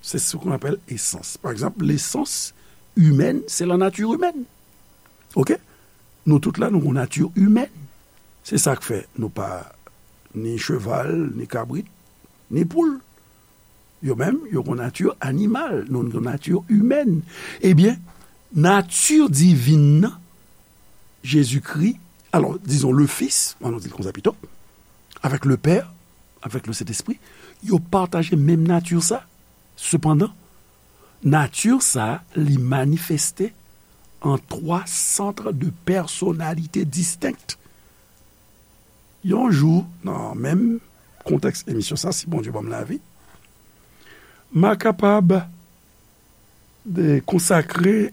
C'est ce qu'on appelle essence. Pa egzanp, lesans imèn, se la nature humaine. Oke? Nou tout la, nou gon nati imèn. Se sa k fè nou pa ni cheval, ni kabrit, ni poul. Yo menm, yo gon nati animal, nou gon nati imèn. Ebyen, nati divin nan, Jezikri, alò, dizon, le Fils, ann nou di l konsa pito, avèk le Père, avèk le Sentespri, yo pataje menm nati sa. Sepandan, nati sa, li manifeste an twa sant de pèsonalite distenk. Yon jou, nan menm kontèks emisyon sa, si Bondye ban m lavi, m a kapab de konsakre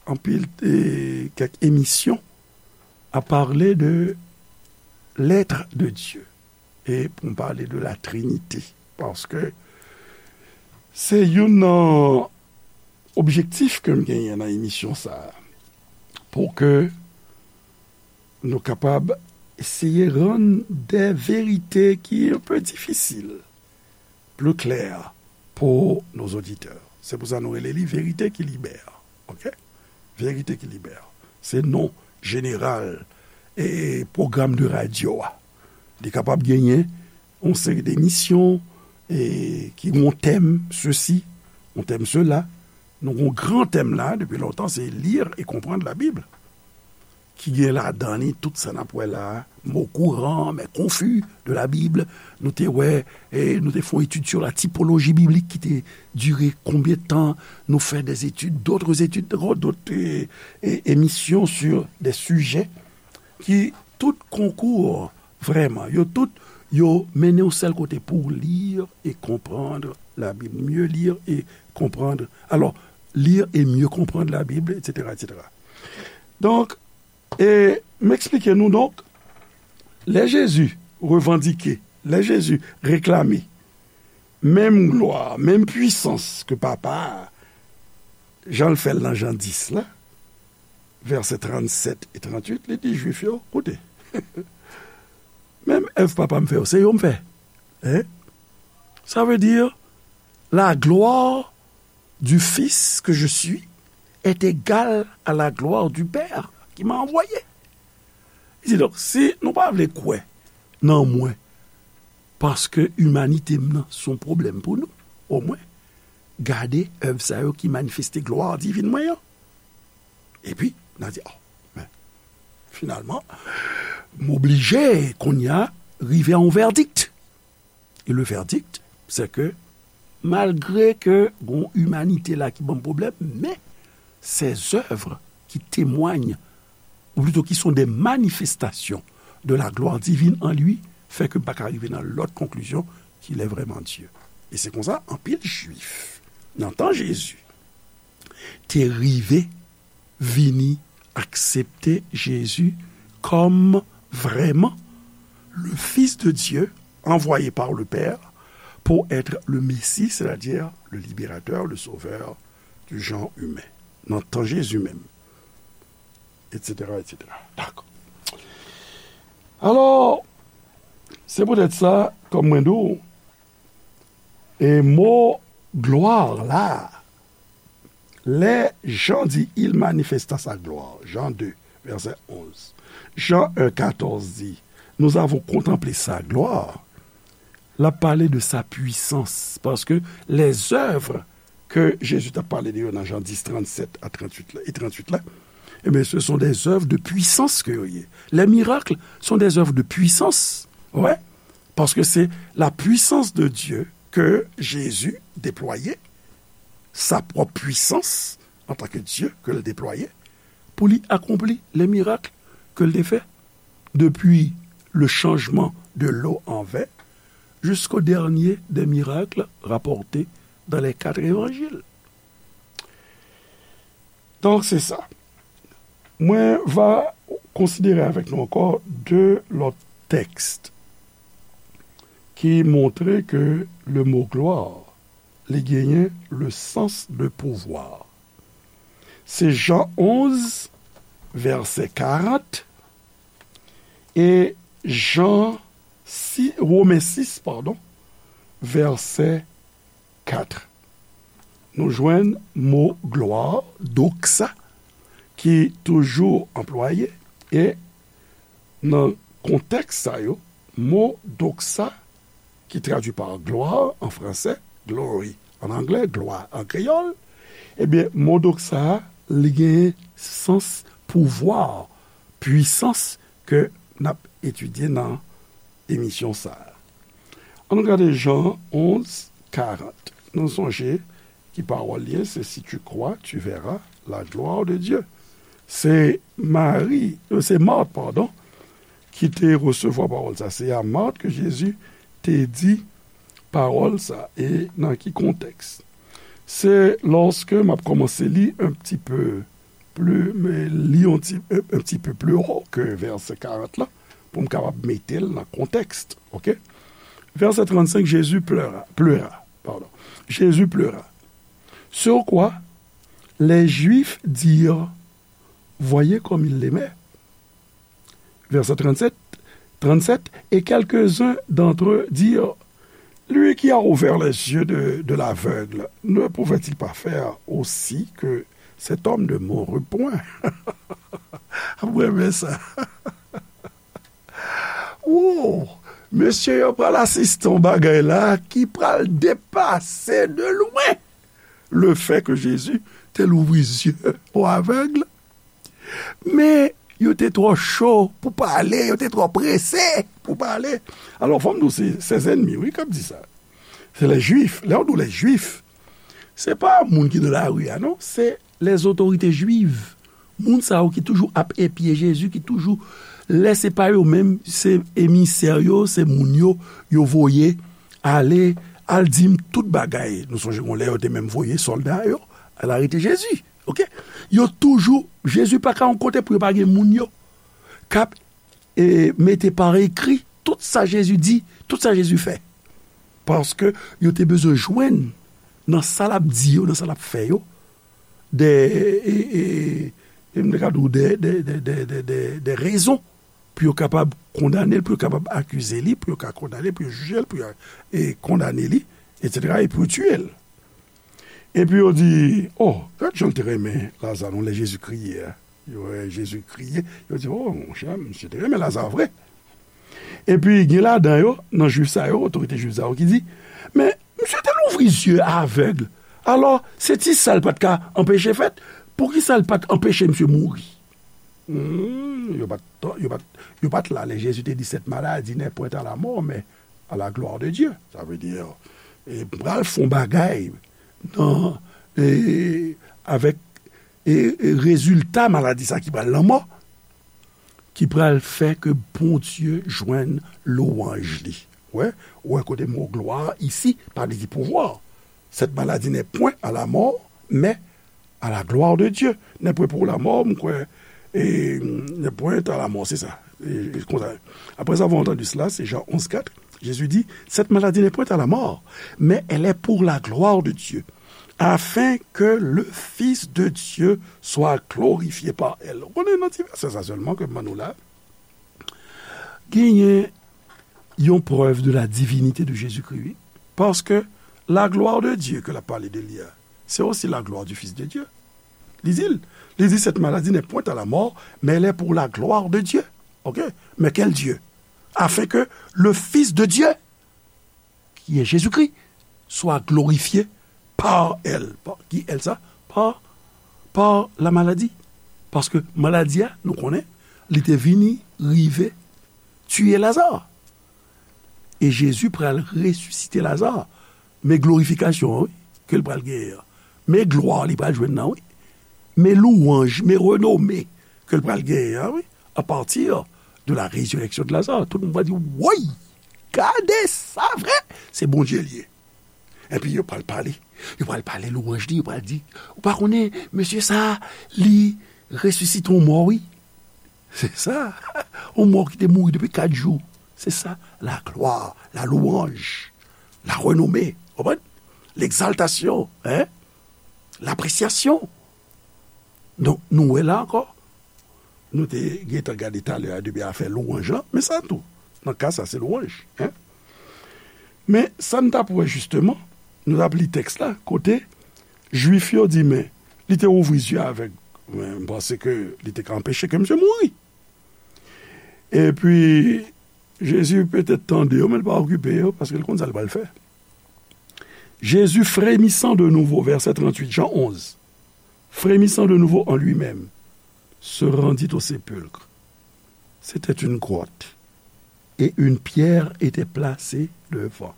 anpil, e, kèk emisyon a pale de l'être de Dieu. E pou m pale de la Trinité, paske se youn nan objektif ke m genyen nan emisyon sa a, pou ke nou kapab eseye rann de verite ki un peu difisil pli klè pou nos auditeurs. Se pou sa nou rele li Verite ki libè. Oke? Verite ki libè. Se non jeneral e pwogram de radyo a. Li kapab genyen yon seri de emisyon e ki gen yon tèm sesi, yon tèm sela. Nou gen yon gran tèm la, depi lontan, se lire et comprendre la Bible. Ki gen ladan li tout sa n ap wè la a, mots courants, mais confus de la Bible. Nou te wè, e, nou te fè yon etid sur la typologie biblique ki te dire konbyen tan, nou fè des études, d'autres études, d'autres, e, e, émissions sur des sujets ki tout konkou, vrèman, yo tout, yo mennen yon sèl kote pou lire et comprendre la Bible, mieux lire et comprendre. Alors, lire et mieux comprendre la Bible, et cetera, et cetera. Donk, e m eksplike nou, donk, lè Jezi revandike, lè Jezi reklame menm glwa, menm pwisans ke Papa a, jan l fè l nan Jan dis la, vèsè trannsèt e trantuit, li di Jwif yo, koute, menm èv Papa m fè yo, se yo m fè. Hein? Ça veut dire, la gloire du Fils que je suis est égale à la gloire du Père qui m'a envoyé. Li di, donk, si nou pa vle kwè nan mwen, paske imanite m nan se yon pwoblèm pou nou, omwen, gade èv sa yo ki manifeste glwa divin mwen an. Epi, n a di, oh, men, finalman, m oblije, kounye a, rive a yon vèdik. E le verdict, c'est que malgre ke gon imanite la ki ban m pwoblèm, men ses œuvres qui témoignent, ou plutôt qui sont des manifestations de la gloire divine en lui, fè ke m pa ka rive nan lòt konklisyon qu'il est vraiment Dieu. E se konsa, anpil Jwif, nan tan Jezi, te rive vini aksepte Jezi kòm vrèman le Fils de Dieu envoyé par le Père pour être le Messie, c'est-à-dire le libérateur, le sauveur du genre humain. Nan tan Jezi menm, et cetera, et cetera. Dakò. Alò, se poutèt sa, kòm mwen di w, e mo glwa la, lè Jan di, il manifesta sa gloire, Jean deux, verset onze. Jean un, quatorze di, nous avons contemplé sa gloire. L ap pale de sa pwisans, paske les œuvres ke Jezi t ap pale de yo nan Jan dis, trannsèt a trantuit la, e trantuit la, ebyen, ce sont des œuvres de puissance ke yo ye. Les miracles sont des œuvres de puissance. Ouais. Paske se la puissance de Dieu ke Jezi deplwaye, sa pwòp pwisans antanke Dye ke l deplwaye pou li akonpli les miracles ke l te fè, depuis le changement de l'eau en vin jusqu'au dernier des miracles rapportés dans les quatre évangiles. Donk, se sa. Mwen va konsidere avèk nou ankò de lòt tèks ki montre ke le mo glwa, li genyen le sens de pouvoir. Se Jan onz, vèsè karant, e Jan sis, Women sis, padon, vèsè kat. Nou jwenn mo glwa, doxa, ki toujou anplwaye, e nan kontèks sa yo, mo doxa, ki tradui pa glwa an fransè, glory an anglè, glwa an kreyòl, ebyen, mo doxa a, li gen sans pouvwa, pwisans ke n ap etidye nan emisyon sa a. Ann nou gade Jan onz, karant. Nou sonje ki pawòl li ye, se si tu crois, tu verras la gloire de Dieu. Se Mari, euh, se Mat, padon, ki te resevwa pawòl sa. Se a Mat ke Jezi te di pawòl sa. E nan ki kontèks? Se lòske m ap kòmanse li un petit peu plus, men li yon ti, un, un petit peu plus haut ke vèsè karant la, pou m kapab mete l nan kontèks, oke? Vèsè trannsenk, Jésus pleura, pleura, pardon. Jésus pleura. Sur quoi les Juifs dirent, voyez comme il l'aimait. Verset trente-sept, trente-sept, et quelques-uns d'entre eux dirent, lui qui a ouvert les yeux de, de l'aveugle, ne pouvait-il pas faire aussi que cet homme ne mourût point? Mwen renmen sa. Wow! Mesye yo pral asiste yon bagay la ki pral depase de lwen le fè ke Jezi te louvri zye o avèg. Men, yo te twò cho pou pale, yo te twò prese pou pale. Alò, fò m di w, se, se zènmi, wi, k ap di sa. Se lè Jwif. Lè w di w lè Jwif, se pa moun ki nan lari a, non. Se lèzotorite jwiv. Moun sa yo ki toujou ap epye Jezi, ki toujou, lè se pa yo menm, se emisè yo, se moun yo, yo voye ale, al di m tout bagay. Nou sonje gon lè yo te menm voye sòlda yo al arete Jezi. Oke? Yo toujou, Jezi pa ka yon kote pou yo pa gen moun yo k ap, e, mete pa ekri tout sa Jezi di, tout sa Jezi fè. Paske yo te bezwen jwenn nan sa l ap di yo, nan sa l ap fè yo, de, e, e, e, m te ka di w de, de, de rezon pou yo kapab kondane l, pou yo kapab akize li, pou yo ka kondane l, pou yo jije l, pou yo, e, kondane li, etsetera, e pou yo tiye l. Epi yo di, "Oh, gad jan l te renmen Laza non, lè Jezi kriye a." Yo wè Jezi kriye, yo di, "Oh, monchè, misye te renmen Laza vre." Epi gen ladan yo, nan Jwif sa yo, otorite jwiv sa yo ki di, "Men, misye te louvri zye avèg. Alò, se ti sa l pa t ka anpeche fèt. Poukisa l pa t anpeche misye mouri?" Hmm, yo pa t, yo pa t, yo pa t la lè Jezi te di, "Cette maladie n'est point à la mort, mais à la gloire de Dieu." Sa vle di, e, pral fè yon bagay nan, e, avèk, e, e, rezilta maladi sa ki pral lanmò, ki pral fè ke Bondye jwenn lwanj li. Wè, ou wè kote mo glwa isi, pa vle di pouvwa. Cette maladie n'est point à la mort, mais à la gloire de Dieu. N'est point pour la mort, m kwè, e, n'est point à la mort, se sa. E, e, konsa. Après avoir entendu cela, c'est Jean onze quatre, Jésus dit, cette maladie n'est point à la mort, mais elle est pour la gloire de Dieu, afin que le Fils de Dieu soit glorifié par elle. Ou konnen nan ti vèsè sa sèlman ke m ban nou la, genyen yon prèv de la divinité de Jésus-Christ, wi. Paske la gloire de Dieu ke l ap pale de li a, c'est aussi la gloire du Fils de Dieu. Li di l, li di, cette maladie n'est point à la mort, mais elle est pour la gloire de Dieu. Ok? Mais quel Dieu? Afin que le Fils de Dieu, qui est Jésus-Christ, soit glorifié par elle. Par, ki elle sa? Par, par la maladie. Paske maladi a, nou konnen, li te vini rive tiye Lazare. E Jezi pral resisite Lazare. Men glorifikasyon an, wi, ke l pral genyen an. Men glwa li pral jwenn nan, wi. Men lwanj, men renome ke l pral genyen an, wi, à partir de la résurrection de Lazare. Tout moun va di, woy, gade sa vre, se Bondye li ye. Epi yo pral pale, yo pral pale lwanj li, yo pral di, ou pa konnen, mesye sa, li resisite yon mò, wi. Se sa, yon mò ki te mouri depi kat jou. Se sa, la gloire, la louange, la renommée, konprann? L'exaltation, hein? L'appréciation. Donk, nou wè la ankò, nou te gentan gade talè a depi afè lwanj lan, men sa tou, nan ka sa, se lwanj, hein? Men sa n t ap wè jisteman, nou t ap li tèks la, kote Jwif yo di, men, li te ouvri zye avèg, men m panse ke li te ka anpeche ke misye mouri. Epi, Jezi petèt tande yo, men l pa okipe yo, paske l konn sa l pral fè. Jésus, frémissant de nouveau, verset trente-huit, Jean onze, frémissant de nouveau en lui-même, se rendit au sépulcre. C'était une grotte, et une pierre était placée devant.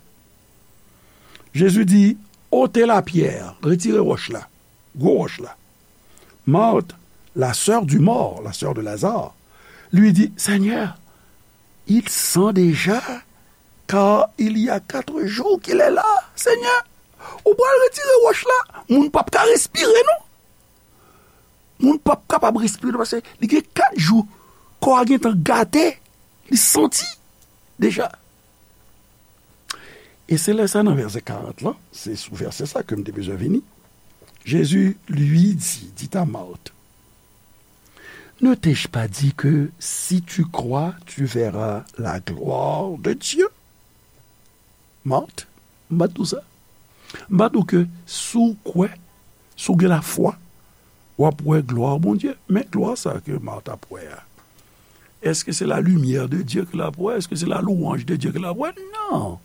Jésus dit, ôtez la pierre, retirez wòch la, gwo wòch la. Marthe, la sœur du mort, la sœur de Lazare, lui dit, Seigneur, il sent déjà, car il y a quatre jours qu'il est là. Seigneur, ou pral retire wòch la, moun p ap ka respire non. Moun p ap kapab respire non, paske li gen kat jou, kò a gentan gate, li santi deja. E se lè sa nan vèsè karant lan, se sou vèsè sa ke m te bezwen vini. Jésus lui dit, dit à Marthe, ne t'ai-je pas dit que si tu crois, tu verras la gloire de Dieu? Marthe, m pa t di w sa? M pa t di w ke si w kwè, si w gen lafwa, w ap wè glwa Bondye? Men glwa sa ke Marthe ap wè a, èske se la limyè de Dye ke l ap wè? Èske se la lwanj de Dye ke l ap wè? Non.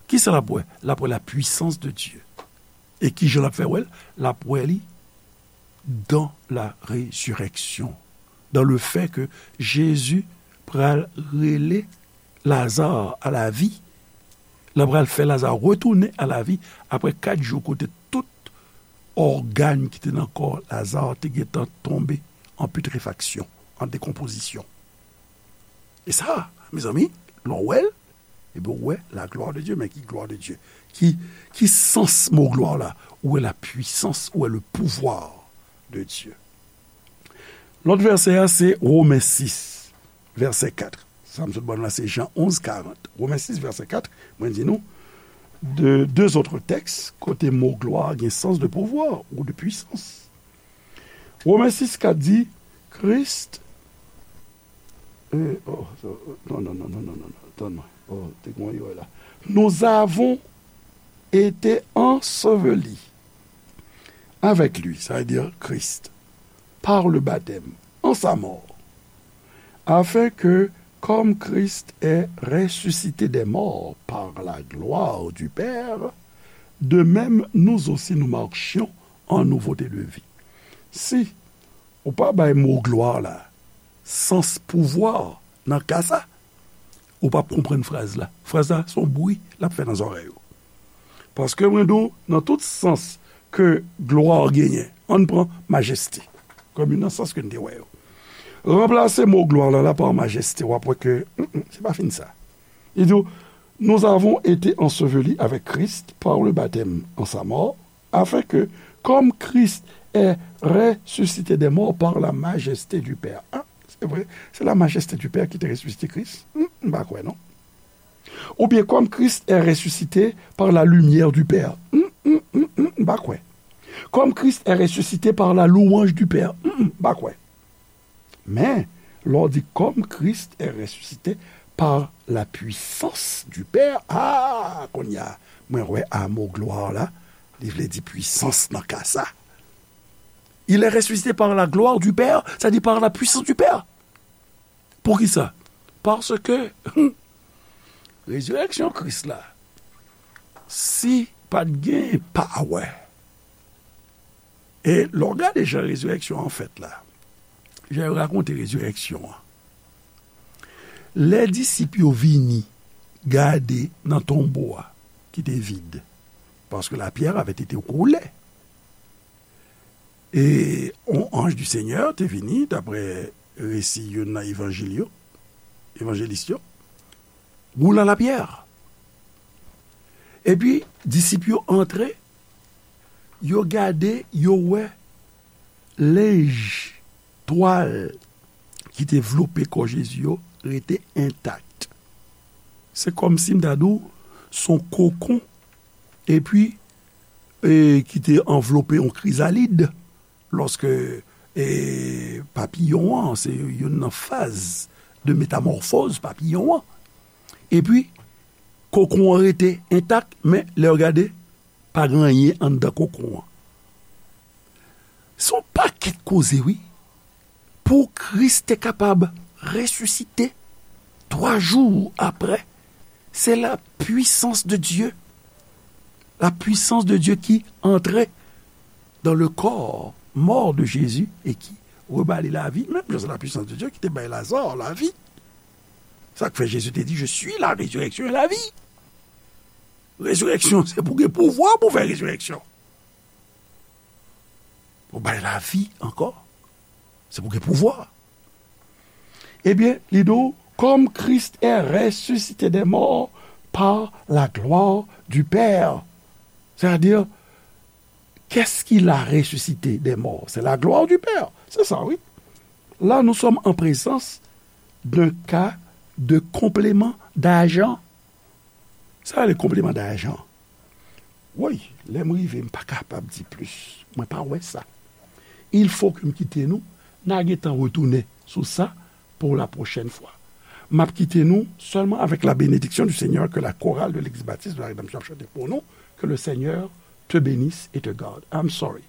Kisa l ap wè? L ap wè la puissance de Dieu. E kijan l ap fè wè l? L ap wè li dans la résurrection, dans le fait que Jésus pral rele Lazare à la vie, l ap pral fè Lazare retounen à la vie apre kat jou kote tout ògàn ki te nan kò Lazare te gentan tonbe an putréfaction, an décomposition. E sa, mezanmi, lè w wè l, epi w wè la gloire de Dieu. Men ki gloire de Dieu? Ki, ki sans mo gloire la? Ou wè la puissance, ou wè le pouvoir de Dieu. Lòt vèsè a, se Women sis, vèsè kat. Sa m sot ban nou la, se Jan onz karant. Women sis, vèsè kat, mwen di nou, de, deux autres textes, kote mo gloire gen sans de pouvoir ou de puissance. Women sis kat di, Christ, euh, oh, non, non, non, non, non, non, non, tann mwen. Oh, te gen yon erè la. Nous avons été ensevelis avec lui, ça veut dire Christ, par le baptême, en sa mort, afin que, comme Christ est ressuscité des morts par la gloire du Père, de même nous aussi nous marchions en nouveauté de vie. Si ou pa bay mo glwa la sans pouvwa nan ka sa, ou p ap konprann fraz la. Fraz la, se yon bri l ap fè nan zòrèy ou. Paske mwen di w, nan tout sans ke glwa genyen, ann pran majeste kòm youn nan sans ke n te wè yo. Ranplase mo glwa la, la pa majeste, w ap wè ke, mm, mm, se pa fin sa. Li di w, nous avons été ensevelis avec Christ par le baptême en sa mort, afin que, comme Christ est ressuscité des morts par la majesté du Père. Ah, c'est vrai, c'est la majesté du Père qui te ressuscité Christ. Hmm, m pa kwè, non. Ou bien, comme Christ est ressuscité par la lumière du Père. Hmm, hmm, hmm, hmm, m pa kwè. Comme Christ est ressuscité par la louange du Père. Hmm, hmm, m pa kwè. Men, lè w di, comme Christ est ressuscité par la puissance du Père, ah, kounye a, mwen wè a mo glwa la, li vle di pwisans nan ka sa. Il est ressuscité par la gloire du Père, c'est-à-dire par la puissance du Père. Poukisa? Paske rezirèksyon Kris la, si pa t gen pawè, e lè w gade jan rezirèksyon an fèt la, jan yo rakonte rezirèksyon an, lè disip yo vini gade nan tonbo a ki te vid, parce que la pierre avait été roulée, e yon anj du Senyè te vini, daprè resi youn nan evanjil yo, evanjelis yo, roulant la pierre. Epi, disip yo antre, yo gade, yo wè lenj, twal ki te vlope kò Jezi yo rete entak. Se kòmsi m ta di w, se yon kokon, epi, e, ki te anvlope yon krizalid. Lòske, e, papiyon an, se youn nan faz de metamòfoz papiyon an. Epi, kokon an rete entak, men lè w gade, pa gen anyen anndan kokon an. Se yon pakèt koze, wi. Pou Kris te kapab resisite twa jou apre, se la puissance de Dieu. La puissance de Dieu qui entrait dans le corps mort de Jésus et qui rebâtit la vie. Menm jan se la puissance de Dieu ki te bay Lazare la vie. Sa k fè Jezi te di, je suis la résurrection et la vie. Rezirèksyon, se pou gen pouvwa pou fè rezirèksyon. Pou bay lavi ankò. Se pou gen pouvwa. Ebyen, li di w, comme Christ est ressuscité des morts par la gloire du Père. C'est-à-dire, qu'est-ce qu'il a ressuscité des morts? C'est la gloire du Père. C'est ça, oui. Là, nous sommes en présence d'un cas de complément d'agent. Sa rele complément d'agent. Woy, lè m rive, m pa kapab di plis. Mwen pa wè sa. Il faut que m kite nou, n a gentan retounen sou sa pour la prochaine fois. M ap kite nou seulement avec la bénédiction du Seigneur que la chorale de l'Église baptiste de la Rédemption ap chante pour nous. Que le Seigneur te bénisse et te garde. I'm sorry.